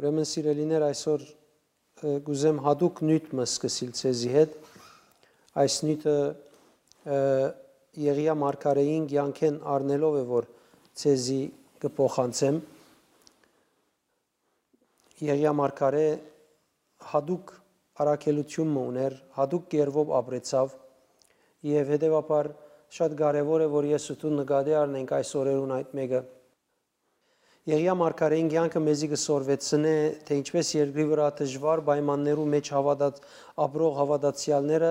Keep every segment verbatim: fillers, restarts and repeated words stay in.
Ուրեմն, սիրելիներ, այսօր, ը, կ'ուզեմ յատուկ նիւթ մը սկսիլ ձեզի հետ։ Այս նիւթը, ը, Եղիա մարգարէին կեանքէն առնելով է, որ ձեզի կը փոխանցեմ։ Եղիա մարգարէ յատուկ առաքելութիւն մը ունէր, յատուկ կերպով ապրեցաւ եւ հետեւաբար շատ կարեւոր է, որ ես ու դու նկատի առնենք այս օրերուն այդ մէկը։ Եղիա մարգարէին կեանքը մեզի կը սորվեցնէ, թէ ինչպէս երկրի վրայ դժուար պայմաններու մէջ հաւատած, ապրող հաւատացեալները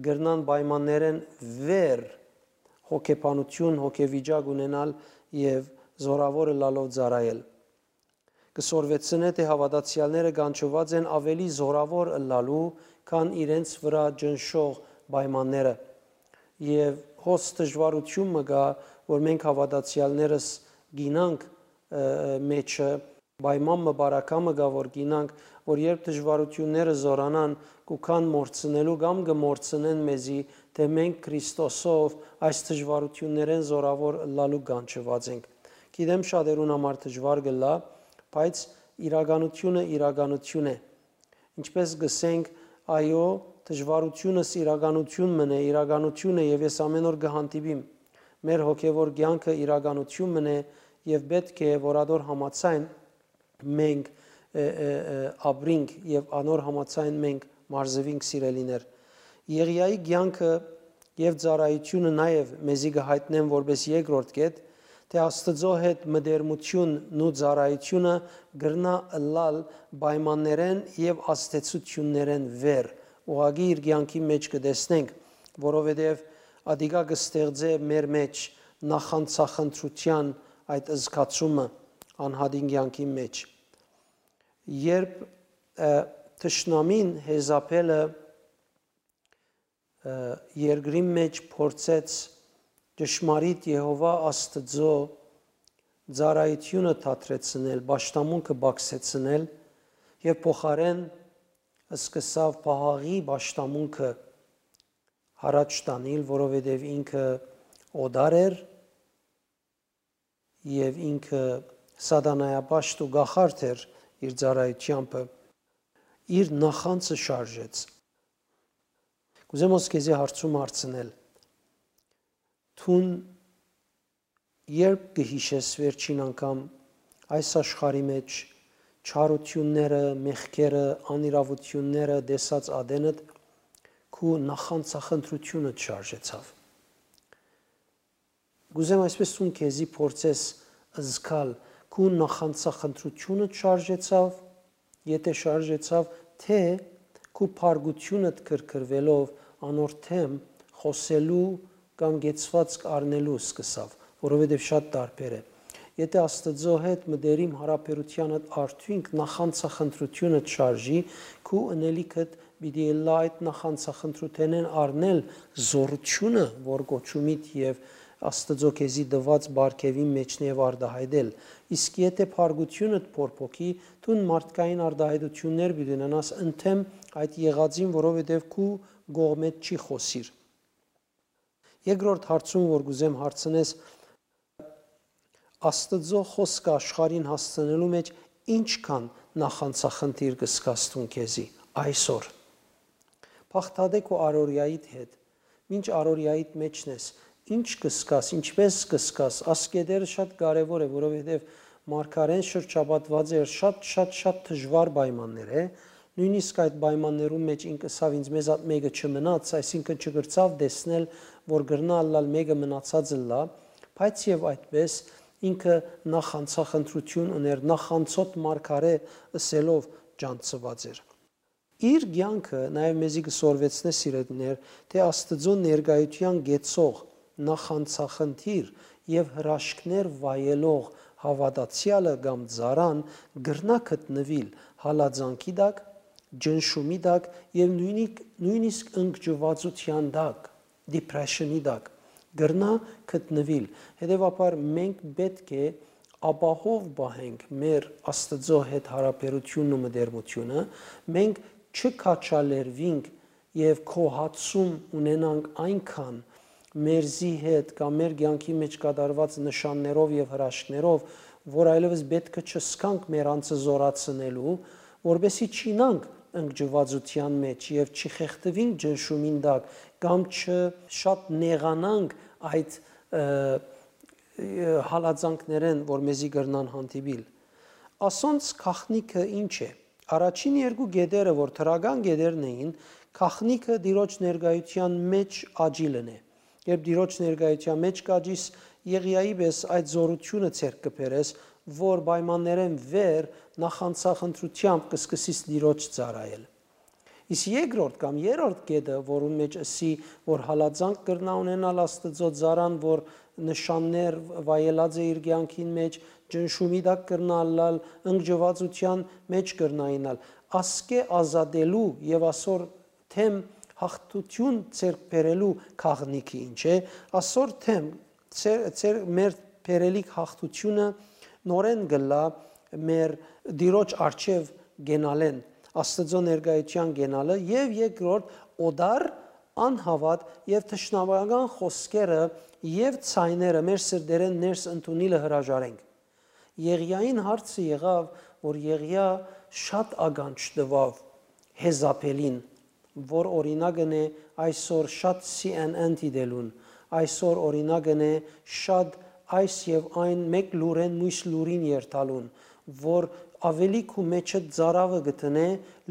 կրնան պայմաններէն վեր հոգեբանութիւն, հոգեվիճակ ունենալ եւ զորաւոր ըլլալով ծառայել։ Կը սորվեցնէ, թէ հաւատացեալները կանչուած են աւելի զորաւոր ըլլալու, քան իրենց վրայ ճնշող պայմանները։ Եւ հոս դժուարութիւն մը կայ, որ մենք հաւատացեալներս գինանք, ը, ը, մէջը, պայման մը, բարակամը կայ, որ գինանք, որ երբ դժուարութիւնները զօրանան, կու գան մոռցնելու կամ կը մոռցնեն մեզի, թէ մենք Քրիստոսով այս դժուարութիւններէն զորաւոր ըլլալու կանչուած ենք։ Գիտեմ, շատերուն համար դժուար կ'ըլլայ, բայց իրականութիւնը իրականութիւն է։ Ինչպէս կ'ըսենք, այո, դժուարութիւնս իրականութիւն մըն է, իրականութիւն է եւ ես ամէն օր կը հանդիպիմ։ Մեր հոգեւոր կեանքը իրականութիւն մըն է եւ պէտք է, որ ատոր համաձայն մենք, ը, ը, ը, ապրինք եւ անոր համաձայն մենք մարզուինք, սիրելիներ։ Եղիայի կեանքը եւ ծառայութիւնը նաեւ մեզի կը յայտնեն որպէս երկրորդ կետ, թէ Աստուծոյ հետ մտերմութիւնն ու ծառայութիւնը կրնայ ըլլալ պայմաններէն եւ ազդեցութիւններէն վեր, ուղղակի իր կեանքի մէջ կը տեսնենք, որովհետեւ ատիկա կը ստեղծէ մեր մէջ նախանձախնդրութեան այդ զգացումը անհատին կեանքի մէջ։ Երբ, ը, թշնամին Յեզապէլը, ը, երկրին մէջ փորձեց ճշմարիտ Եհովա Աստուծոյ ծառայութիւնը դադրեցնել, պաշտամունքը պակսեցնել եւ փոխարէն սկսաւ Պահաղի պաշտամունքը յառաջ տանիլ, որովհետեւ ինքը օտար էր եւ ինքը սատանայապաշտ ու կախարդ էր իր ծառայութեամբը, իր նախանձը շարժեց։ Կ'ուզեմ հոս քեզի հարցում հարցնել. դուն երբ կը յիշես վերջին անգամ այս աշխարհի մէջ չարութիւնները, մեղքերը, անիրաւութիւնները տեսած ատենդ, քու նախանձախնդրութիւնդ շարժեցաւ։ Կ'ուզեմ այսպէս դուն քեզի փորձես զգալ, քու նախանձախնդրութիւնդ շարժեցաւ, եթէ շարժեցաւ, թէ քու փառկութիւնդ քրքրուելով անոր դէմ խօսելու կամ կեցուածք առնելու սկսաւ, որովհետեւ շատ տարբեր է։ Եթէ Աստուծոյ հետ մտերիմ յարաբերութեանդ արդիւնք նախանձախնդրութիւնդ շարժի, քու ընելիքդ պիտի ըլլայ այդ նախանձախնդրութենէն առնել զօրութիւնը, որ կոչումիդ եւ Աստուծոյ քեզի տուած պարգեւին մէջն է, եւ արտայայտել։ Իսկ եթէ փառկութիւնդ փորփոքի, դուն մարդկային արտայայտութիւններ պիտի ունենաս ընդդէմ այդ եղածին, որովհետեւ քու կողմէդ չի խօսիր։ Երկրորդ հարցում, որ կ'ուզեմ հարցնես, Աստուծոյ խօսքը աշխարհին հասցնելու մէջ ինչքան նախանձախնդիր կը զգաս դուն քեզի այսօր։ Բաղդատէ քու առօրեայիդ հետ, մինչ առօրեայիդ մէջն ես, ինչ կը զգաս, ինչպէս կը զգաս, այս կետերը շատ կարեւոր է, որովհետեւ մարգարէն շրջապատուած էր շատ, շատ, շատ դժուար պայմաններ է, նոյնիսկ այդ պայմաններուն մէջ ինք ըսաւ, «Ինձ մեզատ մէկը չմնաց», այսինքն՝ չկրցաւ տեսնել, որ կրնայ ըլլալ մէկը մնացած ըլլայ, բայց եւ այդպէս ինքը նախանձախնդրութիւն ունէր, նախանձոտ մարգարէ ըսելով ճանչցուած էր։ Իր կեանքը նաեւ մեզի կը սորվեցնէ, սիրելիներ, թէ Աստուծոյ ներկայութեան կեցող նախանձախնդիր եւ հրաշքներ վայելող հաւատացեալը կամ ծառան կրնայ գտնուիլ հալածանքի տակ, ճնշումի տակ եւ նոյնիկ-, նոյնիսկ ընկճուածութեան տակ, depression-ի տակ կրնայ գտնուիլ։ Հետեւաբար մենք պէտք է ապահով պահենք մեր Աստուծոյ հետ յարաբերութիւնն ու մտերմութիւնը, մենք չքաչալերուինք եւ գոհացում ունենանք այնքան մերզի հետ կամ մեր կեանքի մէջ կատարուած նշաններով եւ հրաշքներով, որ այլեւս պէտք է չզգանք մեր անձը զօրացնելու, որպեսզի չիյնանք ընկճուածութեան մէջ եւ չխեղդուինք ճնշումին տակ կամ չշատ նեղանանք այդ, ը, ը, հալածանքներէն, որ մեզի կրնան հանդիպիլ։ Ասոնց գաղտնիքը ի՞նչ է։ Առաջին երկու կետերը, որ դրական կետերն էին, գաղտնիքը Տիրոջ ներկայութեան մէջ աճիլն է։ Երբ Տիրոջ ներկայութեան մէջ կ'աճիս, Եղիայի պէս այդ զօրութիւնը ձեռք կը բերես, որ պայմաններէն վեր նախանձախնդրութեամբ կը սկսիս Տիրոջ ծառայել։ Իսկ երկրորդ կամ երրորդ կետը, որուն մէջ ըսի, որ հալածանք կրնայ ունենալ Աստուծոյ ծառան, որ նշաններ վայելած է իր կեանքին մէջ, ճնշումի տակ կրնայ ըլլալ, ընկճուածութեան մէջ կրնայ իյնալ, ասկէ ազատելու եւ ասոր դէմ յաղթութիւն ձեռք բերելու գաղտնիքը ի՞նչ է, ասոր դէմ ձեր, ձեր մեր բերելիք յաղթութիւնը նորէն կ'ըլլայ մեր Տիրոջ առջեւ կենալէն, Աստուծոյ ներկայութեան կենալը եւ երկրորդ օտար անհաւատ եւ թշնամական խօսքերը եւ ձայները մեր սրտերէն ներս ընդունիլը հրաժարենք։ Եղիային հարցը եղաւ, որ Եղիա շատ ականջ տուաւ Հեզապելին, որ օրինակն է այսօր շատ C N N դիտելուն, այսօր օրինակն է շատ այս եւ այն մէկ լուրէն մյուս լուրին երթալուն, որ աւելի քու մէջը ծարաւը կը դնէ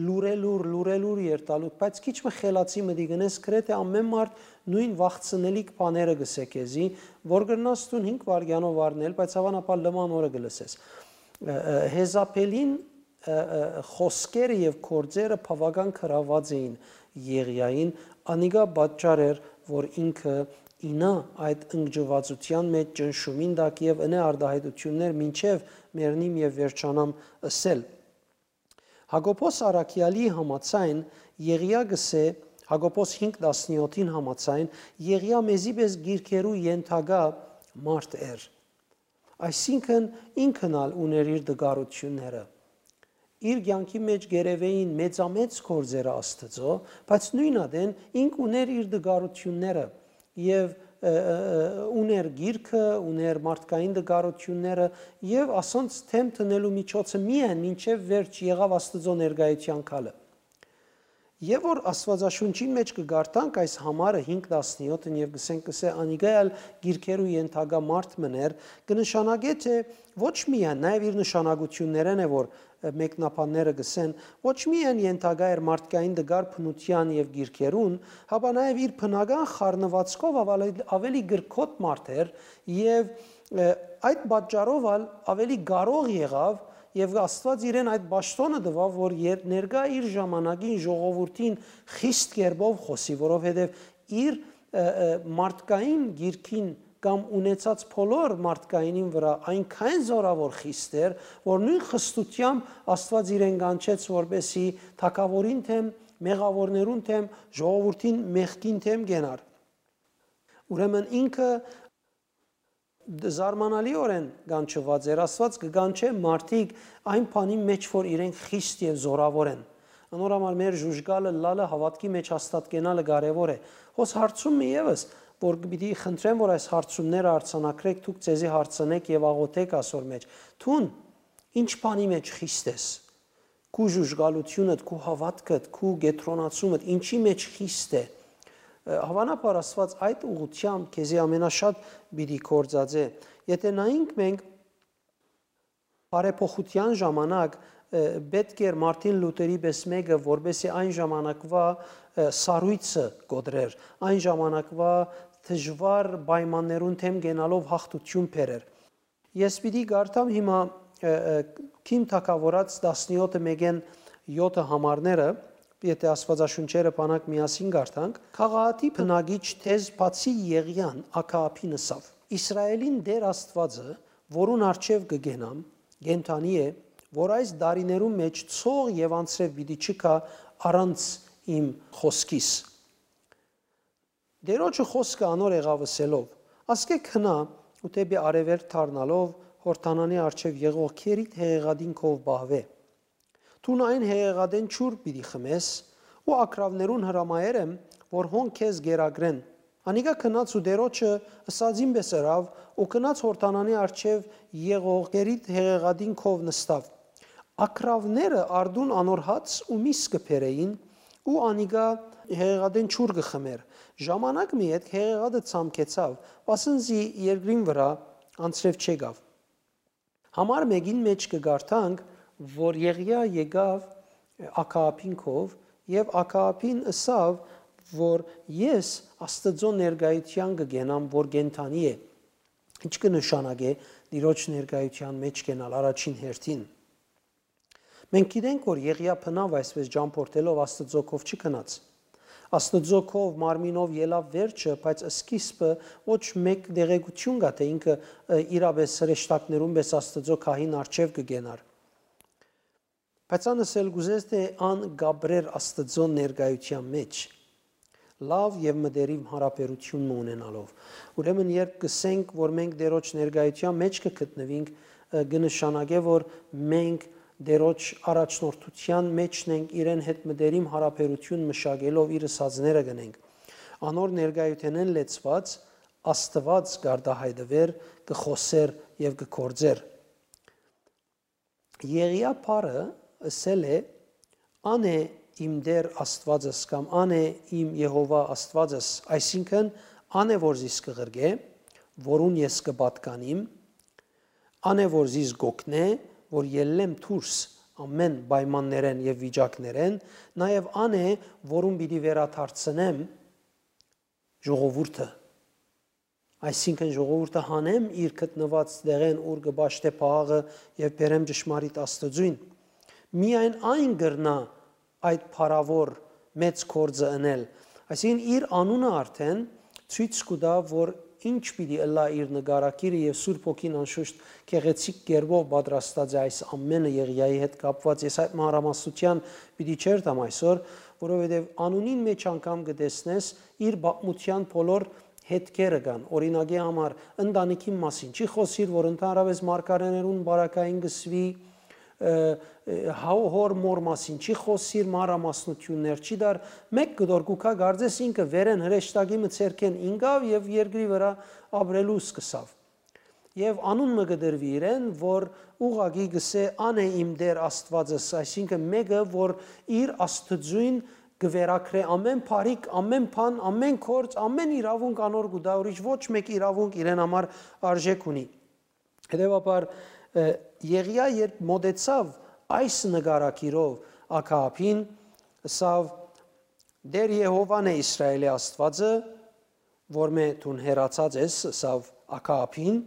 լուրելուր, լուրելուր երթալու, բայց քիչ մը խելացի մտի գնես, գրեթէ ամեն մարդ նոյն վախցնելիք բաները կ'ըսէ քեզի, որ կրնաս դուն հինգ վայրկեանով առնել, բայց հաւանաբար լման օրը կը լսես։ Ը, ը, Հեզապելին, ը, ը, խօսքերը եւ գործերը բաւական գրաւած էին Եղիային, անիկա պատճառ էր, որ ինքը իյնայ այդ ընկճուածութեան մէջ ճնշումին տակ եւ ընէ արտահայտութիւններ մինչեւ մեռնիմ եւ վերջանամ ըսել։ Յակոբոս առաքեալի համաձայն Եղիա կ'ըսէ, Յակոբոս հինգ տասնեօթին համաձայն, Եղիա մեզի պէս գիրքերու ենթակայ մարդ էր։ Այսինքն ինքն ալ ունէր իր տկարութիւնները։ Իր կեանքի մէջ կ'երեւէին մեծամեծ գործերը Աստուծոյ, բայց նոյն ատեն ինք ունէր իր տկարութիւնները եւ, ը, ը, ը, ունէր գիրքը, ունէր մարդկային տկարութիւնները եւ ասոնց դէմ դնելու միջոցը միայն մինչեւ վերջ եղաւ Աստուծոյ ներկայութեան գալը։ Եւ որ Աստուածաշունչին մէջ կը կարդանք այս համարը հինգ տասնեօթն եւ կ'ըսենք, կ'ըսէ, անիկա ալ գիրքերու ենթակայ մարդ մըն էր, կը նշանակէ, թէ ոչ միայն, նաեւ իր նշանակութիւններէն է, որ, ը, մեկնաբանները կ'ըսեն, ոչ միայն ենթակայ էր մարդկային տկար բնութեան եւ գիրքերուն, հապա նաեւ իր բնական խառնուածքով աւելի, աւելի կրքոտ մարդ էր եւ, ը, այդ պատճառով ալ աւելի կարող եղաւ եւ Աստուած իրեն այդ պաշտօնը տուաւ, որ եր-, ներկայ իր ժամանակին ժողովուրդին խիստ կերպով խօսի, որովհետեւ իր, ը, ը, մարդկային գիրքին կամ ունեցած բոլոր մարդկայինին վրայ այնքան զօրաւոր խիստ էր, որ նոյն խստութեամբ Աստուած իրեն կանչեց, որպեսզի թագաւորին դէմ, մեղաւորներուն դէմ, ժողովուրդին մեղքին դէմ կենար։ Ուրեմն ինքը դ-, զարմանալիօրէն կանչուած էր, Աստուած կը կանչէ մարդիկ այն բանի մէջ, որ իրենք խիստ եւ զօրաւոր են։ Անոր համար մեր ժուժկալը լալը հաւատքի մէջ հաստատկենալը կարեւոր է։ Հոս հարցում մը եւս, որ պիտի խնդրեմ, որ այս հարցումները արձանագրեք, դուք ձեզի հարցնեք եւ աղօթեք ասոր մէջ։ Դուն ի՞նչ բանի մէջ խիստ ես։ Քու ժուժկալութիւնդ, քու հաւատքդ, քու կեդրոնացումդ, ինչի մէջ խիստ է։ Ը, հաւանաբար Աստուած այդ ուղղութեամբ քեզի ամենաշատ պիտի գործածէ։ Եթէ նայենք մենք բարեփոխութեան ժամանակ, ը, պէտք էր Մարտին Լութերի պէս մէկը, որպեսզի այն ժամանակվա, ը, սառոյցը կոտրեր, այն ժամանակվա դժուար պայմաններուն դէմ կենալով յաղթութիւն բերեր։ Ես պիտի կարդամ հիմա, ը, ը, Քիմ թագաւորաց տասնեօթը մէկէն եօթը համարները, եթէ Աստուածաշունչերը բանակ միասին կարդանք, Գաղաատի բնակիչ Թեզ բացի Եղիան Աքաաբին ըսաւ. «Իսրայէլին Տէր Աստուածը, որուն առջեւ կը կենամ, կենդանի է, որ այս դարիներուն մէջ ցող եւ անձրեւ պիտի չգայ առանց իմ խօսքիս»։ Տէրոջը խօսքը անոր եղաւ ըսելով. «Ասկէ գնա ու դէպի արեւելք դառնալով Յորդանանի առջեւ եղող քերիդ հեղեղատին քով պահուէ։ Դուն այն հեղեղատէն ջուր պիտի խմես ու ագռաւներուն հրամայեր եմ, որ հոն քեզ կերակրեն, Անիկա գնաց ու Տէրոջը ըսածին պէս ըրաւ ու գնաց Յորդանանի առջեւ եղող Կերիտ հեղեղատին քով նստաւ։ Ակռաւները առտուն անոր հաց ու միս կը բերէին ու անիկա հեղեղատէն ջուր կը խմէր։ Ժամանակ մը ետք հեղեղատը ցամքեցաւ, վասն զի երկրին վրայ անձրեւ չեկաւ։ Համար մէկին մէջ կը կարդանք, որ Եղիա եկաւ Աքաաբին քով եւ Աքաաբին ըսաւ, որ ես Աստուծոյ ներկայութեան կը կենամ, որ կենդանի է։ Ի՞նչ կը նշանակէ Տիրոջ ներկայութեան մէջ կենալ առաջին հերթին։ Մենք գիտենք, որ Եղիա բնաւ այսպէս ճամփորդելով Աստուծոյ քով չգնաց։ Աստուծոյ քով մարմինով ելաւ վերջը, բայց սկիզբը ոչ մէկ տեղեկութիւն կայ, թէ ինքը, ը, իրապէս հրեշտակներուն պէս Աստուծոյ գահին առջեւ կը կենար։ Բայց ան ըսել կ'ուզես, թէ ան կ'ապրէր Աստուծոյ ներկայութեան մէջ, լաւ եւ մտերիմ յարաբերութիւն մը ունենալով։ Ուրեմն, երբ կ'ըսենք, որ մենք Տէրոջ ներկայութեան մէջ կը գտնուինք, ը, կը նշանակէ, որ մենք Տէրոջ առաջնորդութեան մէջն ենք, իրեն հետ մտերիմ յարաբերութիւն մշակելով իր ըսածները կ'ընենք։ Անոր ներկայութենէն լեցուած Աստուած կ'արտայայտուէր, կը խօսէր եւ կը գործէր։ Եղիա բառը ըսել է. «Ան է իմ Տէր Աստուածս» կամ «Ան է իմ Եհովա Աստուածս», այսինքն՝ «Ան է որ զիս կը ղրկէ, որուն ես կը պատկանիմ, ան է որ զիս կ'օգնէ, որ ելլեմ դուրս ամէն պայմաններէն եւ վիճակներէն, նաեւ ան է, որուն պիտի վերադարձնեմ ժողովուրդը»։ Այսինքն՝ ժողովուրդը հանեմ իր գտնուած տեղէն, ուր կը պաշտէ փաղը, եւ բերեմ ճշմարիտ Աստուծոյն։ Միայն այն կրնայ այդ փառաւոր մեծ գործը ընել։ Այսինքն՝ իր անունը արդեն ցոյց կու տայ, որ ինչ պիտի ըլլայ իր նկարագիրը, եւ Սուրբ Հոգին անշուշտ գեղեցիկ կերպով պատրաստած է այս ամէնը Եղիայի հետ կապուած։ Ես այդ մանրամասնութեան պիտի չերթամ այսօր, որովհետեւ անունին մէջ անգամ կը տեսնես իր պատմութեան բոլոր հետքերը կան։ Օրինակի համար, ընտանիքին մասին չի խօսիր, որ ընդհանրապէս մարգարէներուն պարագային կը սուի, ը, ը, հա-, հոր մոր մասին չի խօսիր, մանրամասնութիւններ չի տար, մէկ կտոր կու գայ, կարծես ինքը վերէն հրեշտակի մը ձեռքէն ինկաւ եւ երկրի վրայ ապրելու սկսաւ։ Եւ անուն մը կը տրուի իրեն, որ ուղղակի կ'ըսէ. «Ան է իմ Տէր Աստուածս», այսինքն՝ մէկը, որ իր Աստուծոյն կը վերագրէ ամէն բարիք, ամէն բան, ամէն գործ, ամէն իրաւունք անոր կու տայ, ուրիշ ոչ մէկ իրաւունք իրեն համար արժէք ունի։ Հետեւաբար, ը, Եղիա երբ մօտեցաւ այս նկարագիրով Աքաաբին, ըսաւ. «Տէր Եհովան է, Իսրայէլի Աստուածը, որմէ դուն հեռացած ես», ըսաւ Աքաաբին,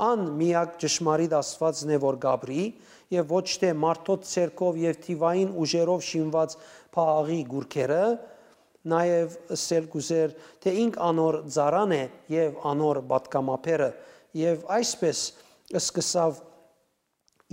«ան միակ ճշմարիտ Աստուածն է, որ կ'ապրի, եւ ոչ թէ մարդոց ձեռքով եւ թիւային ուժերով շինուած Բաղի կուռքերը», նաեւ ըսել կ'ուզէր, թէ ինք անոր ծառան է եւ անոր պատգամաբերը, եւ այսպէս սկսաւ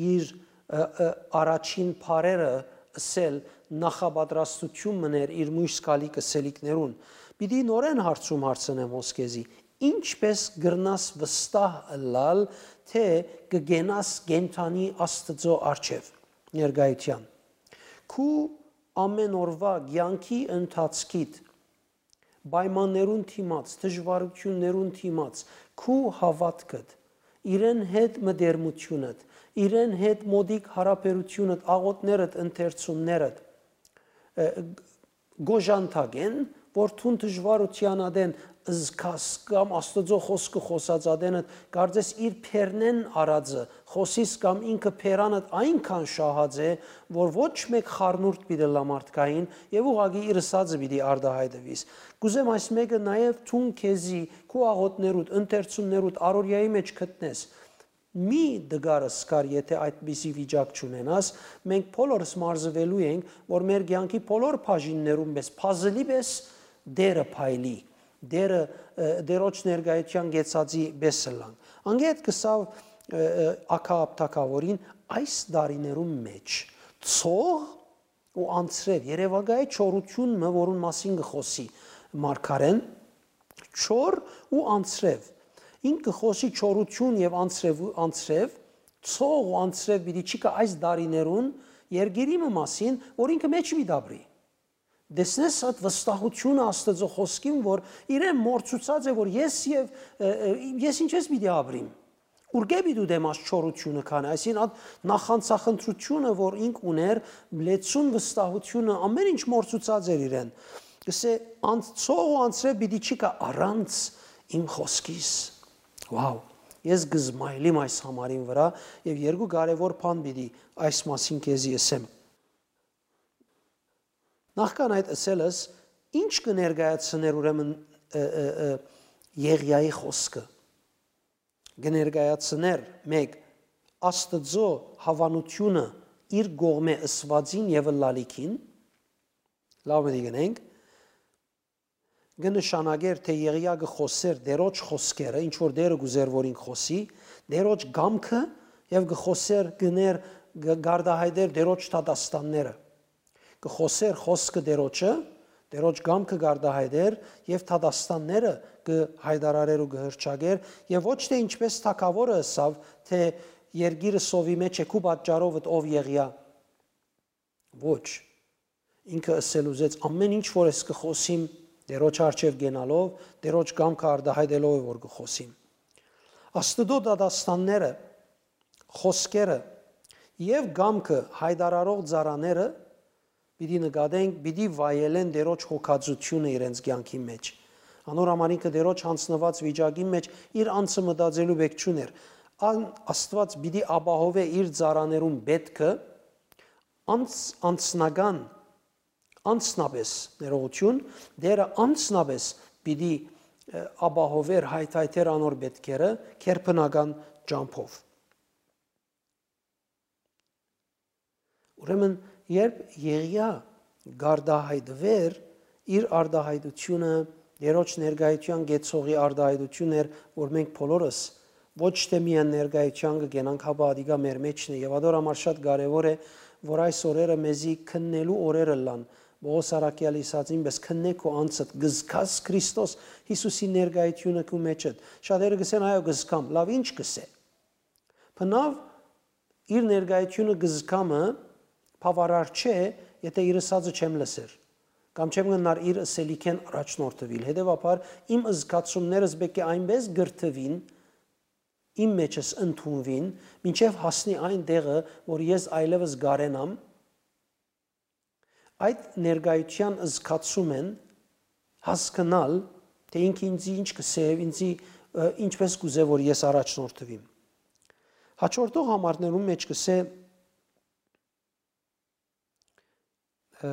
իր, ը, ը, առաջին բառերը ըսել, նախապատրաստութիւն մըն էր իր մոյս գալիք ըսելիքներուն։ Պիտի նորէն հարցում հարցնեմ հոս քեզի. ինչպէս կրնաս վստահ ըլլալ, թէ կը կենաս կենդանի Աստուծոյ առջեւ, ներկայութեան։ Քու ամէն օրուայ կեանքի ընթացքիդ պայմաններուն դիմաց, դժուարութիւններուն դիմաց, քու հաւատքդ, իրեն հետ մտերմութիւնդ, իրեն հետ մօտիկ յարաբերութիւնդ, աղօթքներդ, ընթերցումներդ, ը, գոժանթակեն, որ դուն դժուարութեան ատեն զգաս կամ Աստուծոյ խօսքը խօսած ատենդ, կարծես իր բերնէն արածը խօսիս կամ ինքը բերանդ այնքան շահած է, որ ոչ մէկ խառնուրդ պիտի ըլլայ մարդկային եւ ուղղակի իր ըսածը պիտի արտայայտուիս։ Կ'ուզեմ այս մէկը նաեւ դուն քեզի, քու աղօթքներուդ, ընթերցումներուդ, առօրեայի մէջ գտնես։ Մի տկար ըսկար, եթե այդպիսի վիճակ չունենաս, մենք բոլորս մարզուելու ենք, որ մեր կեանքի բոլոր բաժիններուն պէս, փազլի պէս Տէրը փայլի, Տէրը, ը, Տէրոջ ներկայութեան կեցածի պէս ըլլանք։ Անկէ հետ կ'ըսաւ, ը, ը, Աքաապ թագաւորին, այս տարիներուն մէջ ցող ու անձրեւ, երեւակայ է չորութիւն մը, որուն մասին կը խօսի մարգարէն, չոր ու անձրեւ։ Ինք կը խօսի չորութիւն եւ անձրեւ, անձրեւ, ցող ու անձրեւ պիտի չի գայ այս տարիներուն երկիրի մը մասին, որ ինքը մէջ պիտի ապրի։ Տեսնես այդ վստահությունը Աստծո խոսքին, որ իրեն մոռցուցած է, որ ես եւ, ը, ը, ես ինչպես պիտի ապրիմ։ Ուրկէ պիտի ուտեմ աս չորությունը քանի, այսինքն, այդ նախանցախնդրությունը, որ ինք ուներ, լեցուն վստահությունը, ամեն ինչ մոռցուցած էր իրեն։ Կսե, անցող ու անցրե պիտի չի գայ առանց իմ խոսքիս։ Wow, ես կզմայլիմ այս համարին վրա, եւ երկու կարեւոր բան պիտի այս մասին քեզի ըսեմ։ Նախքան այդ ըսելս, ինչ կը ներկայացնէր ուրեմն, ը, ը, ը, Եղիայի խոսքը։ Կը ներկայացնէր, մէկ, Աստծո հաւանութիւնը իր կողմէ ըսուածին եւ ըլլալիքին, լաւ մտի գնենք, կը նշանակէր, թէ Եղիա կը խօսէր Տէրոջ խօսքերը, ինչ որ Տէրը կ'ուզէր, որ ինք խօսի, Տէրոջ կամքը, եւ կը խօսէր, կը ներ-, կը-, կ'արտահայտէր Տէրոջ դատաստանները։ Կը խօսէր խօսքը Տէրոջը, Տէրոջ կամքը կ'արտահայտէր եւ դատաստանները կը հայտարարէր ու կը հռչակէր, եւ ոչ թէ ինչպես թագաւորը ըսաւ, թէ երկիրը սովի մէջ է քու պատճառովդ, ով Եղիա։ Ոչ։ Ինքը ըսել ուզեց, ամեն ինչ որ ես կը խօսիմ, Տէրոջ առջեւ գնալով, Տէրոջ կամքը արտահայտելով է, որ կը խօսիմ։ Աստուծոյ դատաստանները, խօսքերը եւ կամքը հայտարարող ծառաները պիտի նկատենք, պիտի վայելեն Տէրոջ հոգածութիւնը իրենց կեանքին մէջ։ Անոր համար ինքը Տէրոջ յանձնուած վիճակին մէջ իր անձը մտածելու պէք չունէր։ Ան Աստուած պիտի ապահովէ իր ծառաներուն պէտքը անց-, անձնական, անձնապէս, ներողություն, Տէրը անձնապէս պիտի, ը, ապահովէր, հայթայթէր անոր պէտքերը քերբնական ճամբով։ Ուրեմն, երբ Եղիա կարտահայտուէր, իր արտահայտությունը Տէրոջ ներկայութեան կեցողի արտահայտություն էր, որ մենք բոլորս ոչ թէ միայն ներկայութեան կը կենանք, հապա ատիկա մեր մէջն է։ Եւ ատոր համար շատ կարեւոր է, որ այս օրերը մեզի քննելու օրեր ըլլան։ Պողոս առաքեալը ըսածին պէս, քննէ քու անձդ, կզգաս Քրիստոս Յիսուսի ներկայությունը քու մէջդ։ Շատերը կ'ըսեն, այո, կզգամ, լաւ, ինչ կ'ըսէ։ Բնաւ իր ներկայությունը կզգամը բաւարար չէ, եթէ իր ըսածը չեմ լսեր, կամ չեմ գնար իր ըսելիքէն առաջնորդուիլ։ Հետեւաբար իմ զգացումներս պէտք է այնպէս կրթուին, իմ մեջս ընդունուին, մինչեւ հասնի այն տեղը, որ ես այլեւս կարենամ այդ ներկայութեան զգացումէն հասկնալ, թէ ինքը ինձի ինչ կ'ըսէ եւ ինձի, ը, ինչպէս կ'ուզէ, որ ես առաջնորդուիմ։ Հաջորդող համարներուն մէջ կ'ըսէ, ը,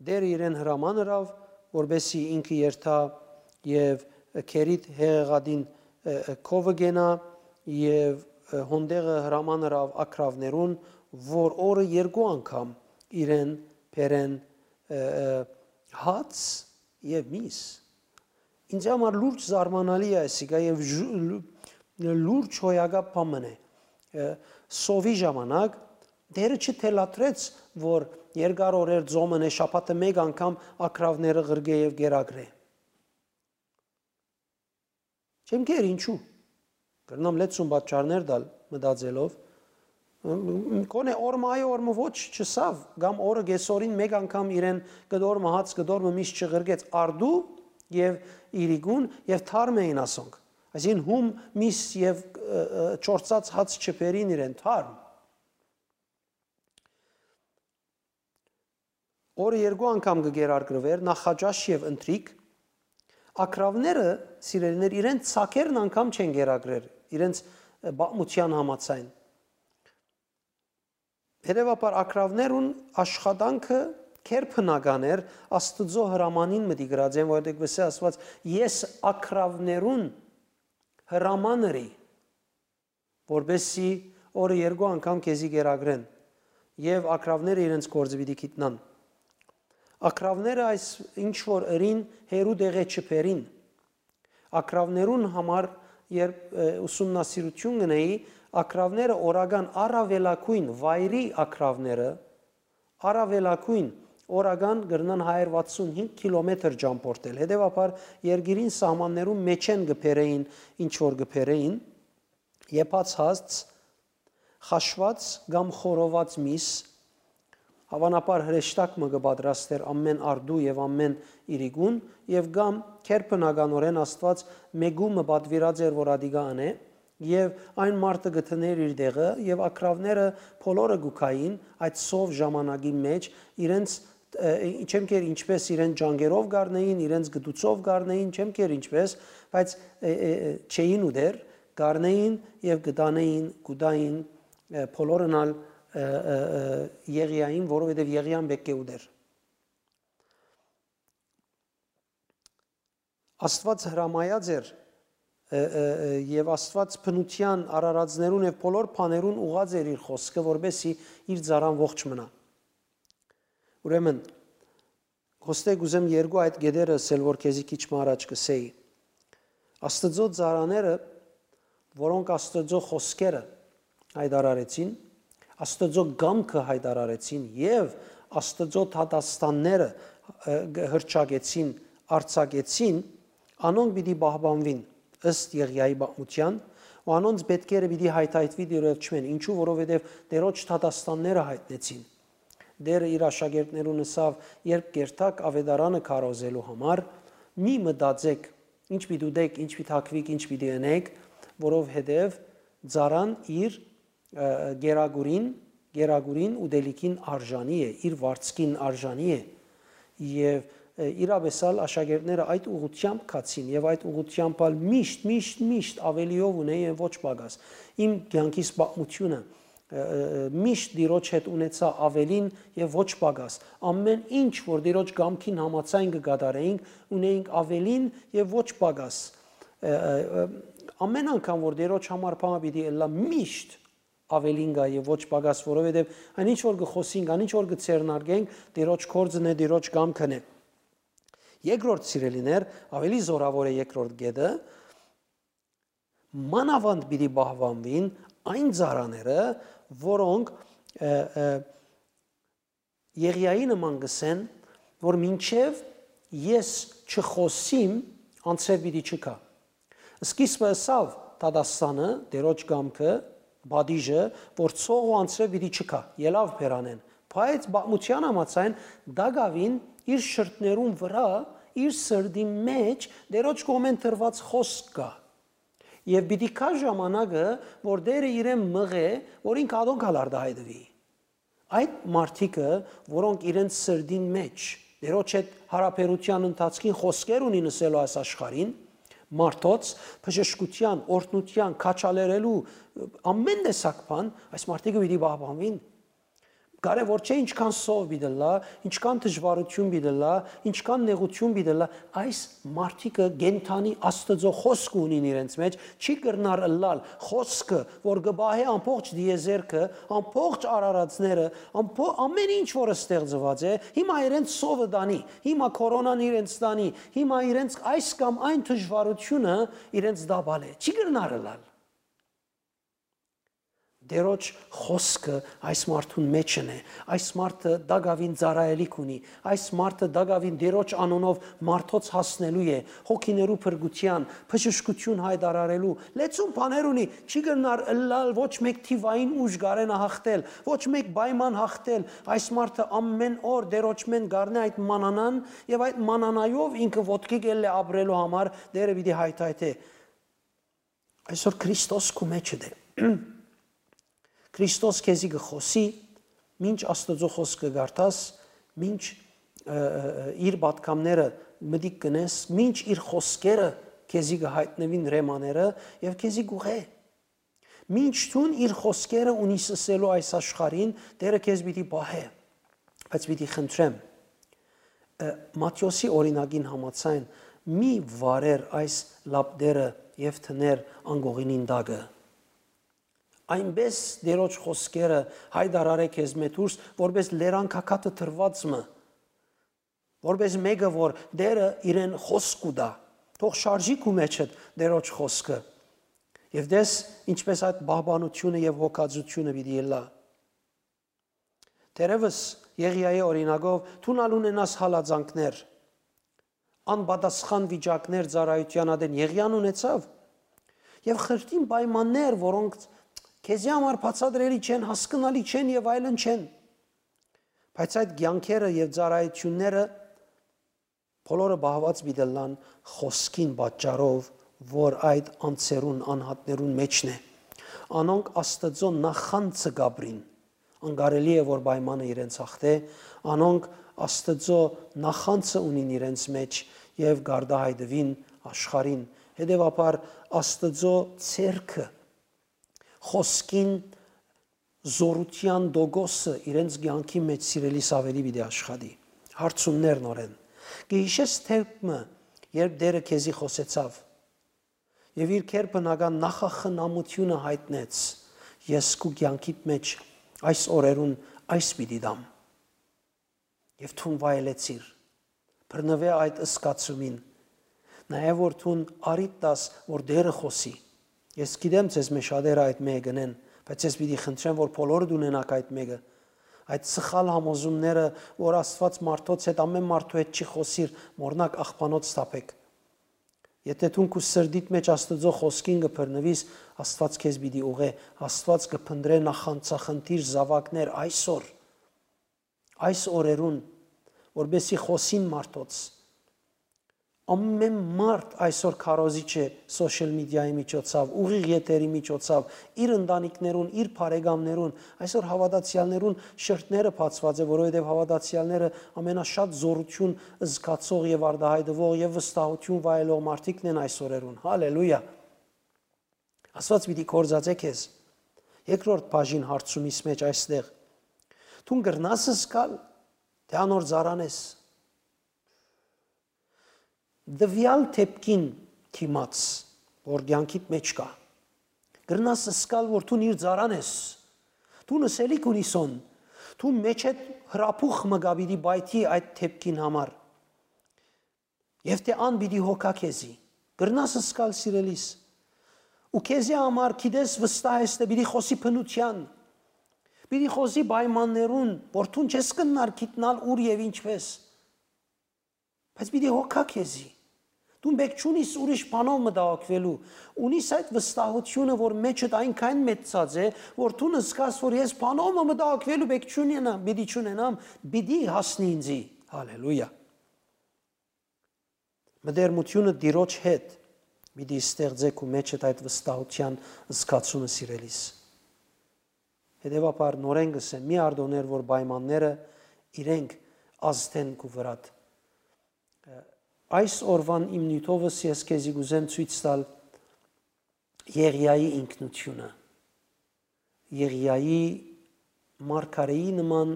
Տէրը իրեն հրաման ըրաւ, որպէսզի ինքը երթայ եւ Քերիտ հեղեղատին, ը, ը, քովը կենայ եւ, ը, հոն տեղը հրաման ըրաւ ագռաւներուն, որ օրը երկու անգամ իրեն բերեն, ը, ը, հաց եւ միս։ Ինձ համար լուրջ զարմանալի է այսիկա եւ ժու-, լու-, լուրջ հոյակապ բան մըն է։ Ը, սովի ժամանակ Տէրը չթելադրեց, որ երկար օրեր ծոմն է, շաբաթը մէկ անգամ ագռաւները ղրկէ եւ կերակրէ։ Չեմ գեր ինչու։ Կրնամ լեցուն պատճառներ տալ մտածելով։ Կոնե օրը մը այո, օրը մը ոչ չըսաւ, կամ օրը կեսօրին մէկ անգամ իրեն կտոր մը հաց, կտոր մը միս չղրկեց, արդու եւ իրիկուն եւ թարմ էին ասոնք։ Այսինքն՝ հում, միս եւ, ը, ը, չորցած հաց չբերին իրեն, թարմ։ Օրը երկու անգամ կը կերակրուէր, նախաճաշ եւ ընթրիք։ Ագռաւները, սիրելիներ, իրենց ծակերն անգամ չեն կերակրեր, իրենց, ը, պատմութեան համաձայն։ Հետեւաբար, ագռաւներուն աշխատանքը քերբնական էր, Աստուծոյ հրամանին մտի գրած են, որովհետեւ կ'ըսէ Աստուած, «Ես ագռաւներուն հրաման ըրի, որպեսզի օրը երկու անգամ քեզի կերակրեն», եւ ագռաւները իրենց գործը պիտի գիտնան։ Ագռաւները այս ինչ որ ըրին, հեռու տեղէ չբերին։ Ագռաւներուն համար, երբ, ը, ուսումնասիրութիւն կ'ընէի, ագռաւները օրական առաւելագոյն վայրի ագռաւները, առաւելագոյն օրական կրնան հայեր վաթսուն հինգ կիլոմետր ճամբորդել։ Հետեւաբար, երկիրին սահմաններուն մէջէն կը բերէին ինչ որ կը բերէին, եփած հաց, խաշուած կամ խորոված միս, Հաւանաբար հրեշտակ մը կը պատրաստէր ամէն արդու եւ ամէն իրիկուն, եւ կամ գերբնականօրէն Աստուած մէկու մը պատուիրած էր, որ ատիկա ընէ, եւ այն մարդը կը դնէր իր տեղը, եւ ակռաւները բոլորը կու գային այդ սով ժամանակի մէջ, իրենց, ը, չեմ կեր ինչպես իրենց ջանքերով կառնեին, իրենց գտուցով կառնեին, չեմ կեր ինչպես, բայց, ը, ը, ը, չէին ուտեր, կառնեին եւ կտանեին, կուտային, ը, բոլորն ալ, ը, ը, ը, Եղիային, որովհետեւ Եղիան պէտք է ուտեր։ Աստուած հրամայած էր, ը, ը, ը, եւ Աստուած բնութեան արարածներուն եւ բոլոր բաներուն ուղղած էր իր խօսքը, որպեսզի իր ծառան ողջ մնայ։ Ուրեմն, հոստե կ'ուզեմ երկու այդ կետերը ըսել, որ քեզի քիչ մը առաջ կ'ըսէի։ Աստուծոյ ծառաները, որոնք Աստուծոյ խօսքերը յայտարարեցին, Աստուծոյ կամքը յայտարարեցին եւ Աստուծոյ դատաստանները, ը, հռչակեցին, արձակեցին, անոնք պիտի պահպանուին ըստ Եղիայի պատմութեան, ու անոնց պէտքերը պիտի յայթայթուի դիրոյթ չմեն, ինչու, որովհետեւ Տէրոջ դատաստանները յայտնեցին։ Տէրը իր աշակերտներուն ըսաւ. «Երբ կ'երթաք աւետարանը քարոզելու համար, մի մտածէք, ինչ պիտի ուտէք, ինչ պիտի թագուիք, ինչ պիտի ընէք, որովհետեւ ծառան իր, ը, կերակուրին, կերակուրին ուտելիքին արժանի է, իր վարձքին արժանի է»։ Եւ, ը, իրապէս ալ աշակերտները այդ ուղղութեամբ գացին եւ այդ ուղղութեամբ ալ միշտ, միշտ, միշտ աւելիով ունէին, ոչ պակաս։ Իմ կեանքիս պատմութիւնը, ը, ը, ը, միշտ Տիրոջ հետ ունեցայ աւելին եւ ոչ պակաս։ Ամէն ինչ, որ Տիրոջ կամքին համաձայն կը կատարէինք, ունէինք աւելին եւ ոչ պակաս։ Ը, ը, ը, ամէն անգամ, որ Տիրոջ համար բանը պիտի ըլլայ, միշտ աւելին կայ եւ ոչ պակաս, որովհետեւ այն ինչ որ կը խօսինք, այն ինչ որ կը ձեռնարկենք, Տիրոջ գործն է, Տիրոջ կամքն է։ Երկրորդ, սիրելիներ, աւելի զօրաւոր է երկրորդ կետը, մանաւանդ պիտի պահպանուին այն ծառաները, որոնք, ը, ը, Եղիայի նման կ'ըսեն, որ մինչեւ ես չխօսիմ, անձրեւ պիտի չգայ։ Սկիզբը ըսաւ դատաստանը, Տիրոջ կամքը, պատիժը, որ ցող ու անձրեւ պիտի չգայ, ելաւ բերանէն, բայց պատմութեան համաձայն տակաւին իր շրթներուն վրայ, իր սրտին մէջ Տիրոջ կողմէն տրուած խօսք կայ։ Եւ պիտի գայ ժամանակը, որ Տէրը իրեն մղէ, որ ինք ատոնք ալ արտայայտուի։ Այդ մարդիկը, որոնք իրենց սրտին մէջ Տիրոջ հետ յարաբերութեան ընթացքին խօսքեր ունին ըսելու այս աշխարհին, մարդոց, բժշկութեան, օրհնութեան, քաջալերելու, ամէն տեսակ բան, այս մարդիկը պիտի պահպանուին։ Կարեւոր չէ ինչքան սով պիտի ըլլայ, ինչքան դժուարութիւն պիտի ըլլայ, ինչքան նեղութիւն պիտի ըլլայ, այս մարդիկը կենդանի Աստուծոյ խօսքը ունին իրենց մէջ, չի կրնար ըլլալ խօսքը, որ կը պահէ ամբողջ տիեզերքը, ամբողջ արարածները, ամբո-, ամէն ինչ որ ստեղծուած է, հիմա իրենց սովը տանի, հիմա քորոնան իրենց տանի, հիմա իրենց այս կամ այն դժուարութիւնը իրենց տապալէ։ Չի կրնար ըլլալ։ Տերոջ խօսքը այս մարդուն մէջն է։ Այս մարդը տակաւին ծառայելիք ունի։ Այս մարդը տակաւին Տերոջ անունով մարդոց հասնելու է, հոգիներու փրկութեան, բժշկութիւն յայտարարելու։ Լեցուն բաներ ունի, չի կրնար ըլլալ ոչ մէկ թիվային ուժ գարենը հաղթել, ոչ մէկ պայման հաղթել։ Այս մարդը ամէն օր Տերոջմէն գարնէ այդ մանանան եւ այդ մանանայով ինքը ոտքի կ'ելլէ ապրելու համար Տերը պիտի հայթայթէ։ Այսօր Քրիստոս քու մէջդ է։ Քրիստոս քեզի կը խօսի, մինչ Աստուծոյ խօսքը կարդաս, մինչ, ը, ը, ը, իր պատգամները մտիկ կ'ընես, մինչ իր խօսքերը քեզի կը հայտնուին, ռեմաները, եւ քեզի կ'ուղղէ։ Մինչ դուն իր խօսքերը ունիս ըսելու այս աշխարհին, Տերը քեզ պիտի պահէ, բայց պիտի խնդրեմ, ը, Մատթէոսի օրինակին համաձայն, մի վարեր այս լապտերը եւ դներ անկողինին տակը։ Այնպէս Տերոջ խօսքերը հայտարարէ քեզմէ դուրս, որպէս լերան քաքատը տրուած մը, որպէս մէկը, որ Տերը իրեն խօսք կու տայ, թող շարժի քու մէջդ Տերոջ խօսքը։ Եւ տես, ինչպէս այդ պահպանութիւնը եւ հոգածութիւնը պիտի ըլլայ։ Թերեւս Եղիայի օրինակով դուն ալ ունենաս հալածանքներ, անպատասխան վիճակներ ծառայութեան ատեն Եղիան ունեցաւ, եւ խրթին պայմաններ, որոնք քեզի համար բացատրելի չեն, հասկնալի չեն եւ այլն չեն։ Բայց այդ կեանքերը եւ ծառայութիւնները բոլորը պահուած պիտի ըլլան խօսքին պատճառով, որ այդ անձերուն, անհատներուն մէջն է։ Անոնք Աստուծոյ նախանձը կ'ապրին։ Անկարելի է, որ պայմանը իրենց հաղթէ, անոնք Աստուծոյ նախանձը ունին իրենց մէջ եւ կ'արտայայտուին աշխարհին։ Հետեւաբար Աստուծոյ ձեռքը, խօսքին զօրութեան տոկոսը իրենց կեանքի մէջ, սիրելիս, աւելի պիտի աշխատի։ Հարցումներ նորէն։ Կը յիշե՞ս դեպք մը, երբ Տէրը քեզի խօսեցաւ եւ իր գերբնական նախախնամութիւնը յայտնեց. «Ես քու կեանքիդ մէջ այս օրերուն այս պիտի տամ»։ Եւ դուն վայելեցիր։ Բռնուէ այդ զգացումին։ Նաեւ որ դուն առիթ տաս, որ Տէրը խօսի։ Ես գիտեմ, ձեզ մէ շատերը այդ մէկը կ'ընեն, բայց ես պիտի խնդրեմ, որ բոլորդ ունենաք այդ մէկը։ Այդ սխալ համոզումները, որ Աստուած մարդոց հետ, ամէն մարդու հետ չի խօսիր, մոռնաք, աղբանոց թափէք։ Եթէ դուն քու սրտիդ մէջ Աստուծոյ խօսքին կը բռնուիս, Աստուած քեզ պիտի ուղղէ, Աստուած կը փնտռէ նախանձախնդիր զաւակներ այսօր, այս օրերուն, որպեսզի խօսին մարդոց։ Ամէն մարդ այսօր քարոզիչ է սոշիալ մեդիայի միջոցաւ, ուղիղ եթերի միջոցաւ, իր ընտանիքներուն, իր բարեկամներուն, այսօր հաւատացեալներուն շրթները բացուած է, որովհետեւ հաւատացեալները ամենաշատ զօրութիւն զգացող եւ արտայայտուող եւ վստահութիւն վայելող մարդիկն են այս օրերուն։ Հալելույա։ Աստուած պիտի կործածէ քեզ։ Երկրորդ բաժին հարցումիս մէջ այստեղ։ Դուն կրնա՞ս զգալ, թէ անոր ծառան ես։ Տուեալ դէպքին դիմաց, որ կեանքիդ մէջ կայ, կրնա՞ս զգալ, որ դուն իր ծառան ես։ Դուն ըսելիք ունիս ան, դու մէջդ հրապուխ մը կայ պիտի պայթի այդ դէպքին համար։ Եւ թէ ան պիտի հոգայ քեզի։ Կրնա՞ս զգալ, սիրելիս։ Ու քեզի համար, գիտես, վստահ ես թէ պիտի խօսի բնութեան, պիտի խօսի պայմաններուն, որ դուն չես կրնար գիտնալ ուր եւ ինչպէս։ Բայց պիտի հոգայ քեզի։ Դուն պէտք չունիս ուրիշ բանով մտահոգուելու։ Ունիս այդ վստահութիւնը, որ մէջդ այնքան մեծցած է, որ դուն զգաս, որ ես բանով մը մտահոգուելու պէտք չունենամ, պիտի չունենամ, պիտի հասնի ինձի։ Հալելույա։ Մտերմութիւնը Տիրոջ հետ պիտի ստեղծէ քու մէջդ այդ վստահութեան զգացումը, սիրելիս։ Հետեւաբար նորէն կ'ըսեմ, մի արտօներ, որ պայմանները իրենք ազդեն քու վրադ։ Այս օրուան իմ նիւթովս ես քեզի կ'ուզեմ ցոյց տալ Եղիայի ինքնութիւնը։ Եղիայի մարգարէի նման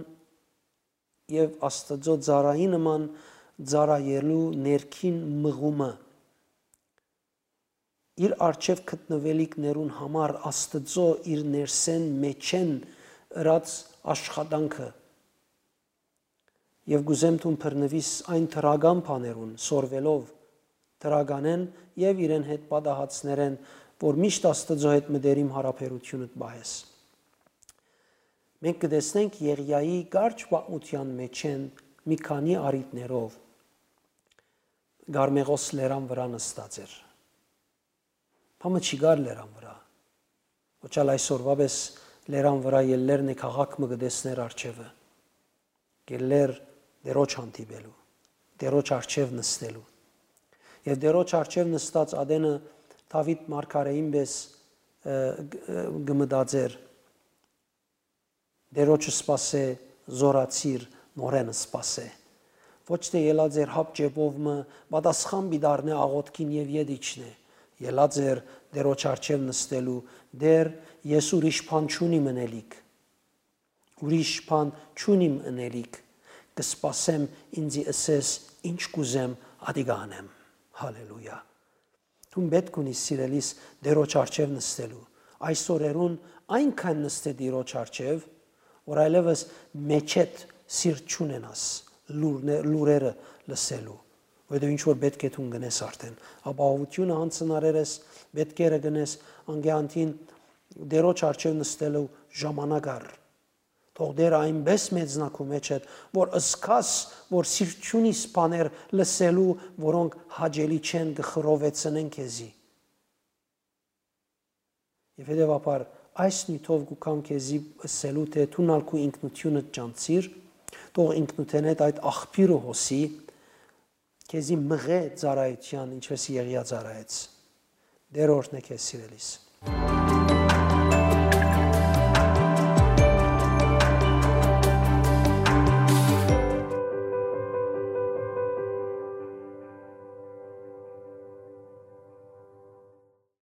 եւ Աստուծոյ ծառայի նման ծառայելու ներքին մղումը, իր առջեւ գտնուելիքներուն համար Աստուծոյ իր ներսէն, մէջէն ըրած աշխատանքը։ Եւ կ'ուզեմ դուն բռնուիս այն դրական բաներուն, սորվելով դրականէն եւ իրեն հետ պատահածներէն, որ միշտ Աստուծոյ հետ մտերիմ յարաբերութիւնդ պահես։ Մենք կը տեսնենք Եղիայի կարճ պատմութեան մէջէն մի քանի առիթներով Կարմեղոս լերան վրայ նստած էր։ Բամը չի գար լերան վրայ։ Ոչ ալ այսօրվա պէս լերան վրայ ելլեր նե քաղաք մը կը տեսներ առջեւը։ Կ'ելլեր Տերոջ հանդիպելու, Տերոջ առջեւ նստելու։ Եւ Տերոջ առջեւ նստած ատենը Դաւիթ մարգարէին պէս, ը, ը, կը մտածեր. «Տերոջը սպասէ, զօրացիր, նորէն սպասէ»։ Ոչ թէ ելած էր հապ ճեպով մը, պատասխան պիտի առնէ աղօթքին եւ ետ իջնէ։ Ելած էր Տերոջ առջեւ նստելու. «Տէր, ես ուրիշ բան չունիմ ընելիք։ Ուրիշ բան չունիմ ընելիք։ Կը սպասեմ, ինծի ըսես, ինչ կ'ուզեմ, ատիկա ընեմ»։ Հալելույա։ Դուն պէտք ունիս, սիրելիս, Տերոջ առջեւ նստելու։ Այս օրերուն այնքան նստէ Տիրոջ առջեւ, որ այլեւս մէջէդ սիրտ չունենաս լուրնե-, լուրերը լսելու, որովհետեւ ինչ որ պէտք է դուն կ'ընես արդէն, ապահովութիւնը յանձնարար ես, պէտքերը կ'ընես, անկեանտին Տերոջ առջեւ նստելու ժամանակ առ։ Թող Տէրը այնպէս մեծնայ քու մէջդ, որ զգաս, որ սիրտ չունիս բաներ լսելու, որոնք հաճելի չեն, կը խռովեցնեն քեզի։ Եւ հետեւաբար այս նիւթով կու գամ քեզի ըսելու, թէ դուն ալ քու ինքնութիւնդ ճանչցիր, Թող ինքնութենէդ այդ աղբիւրը հոսի, քեզի մղէ ծառայութեան, ինչպէս Եղիա ծառայեց։ Տէր օրհնէ քեզ, սիրելիս։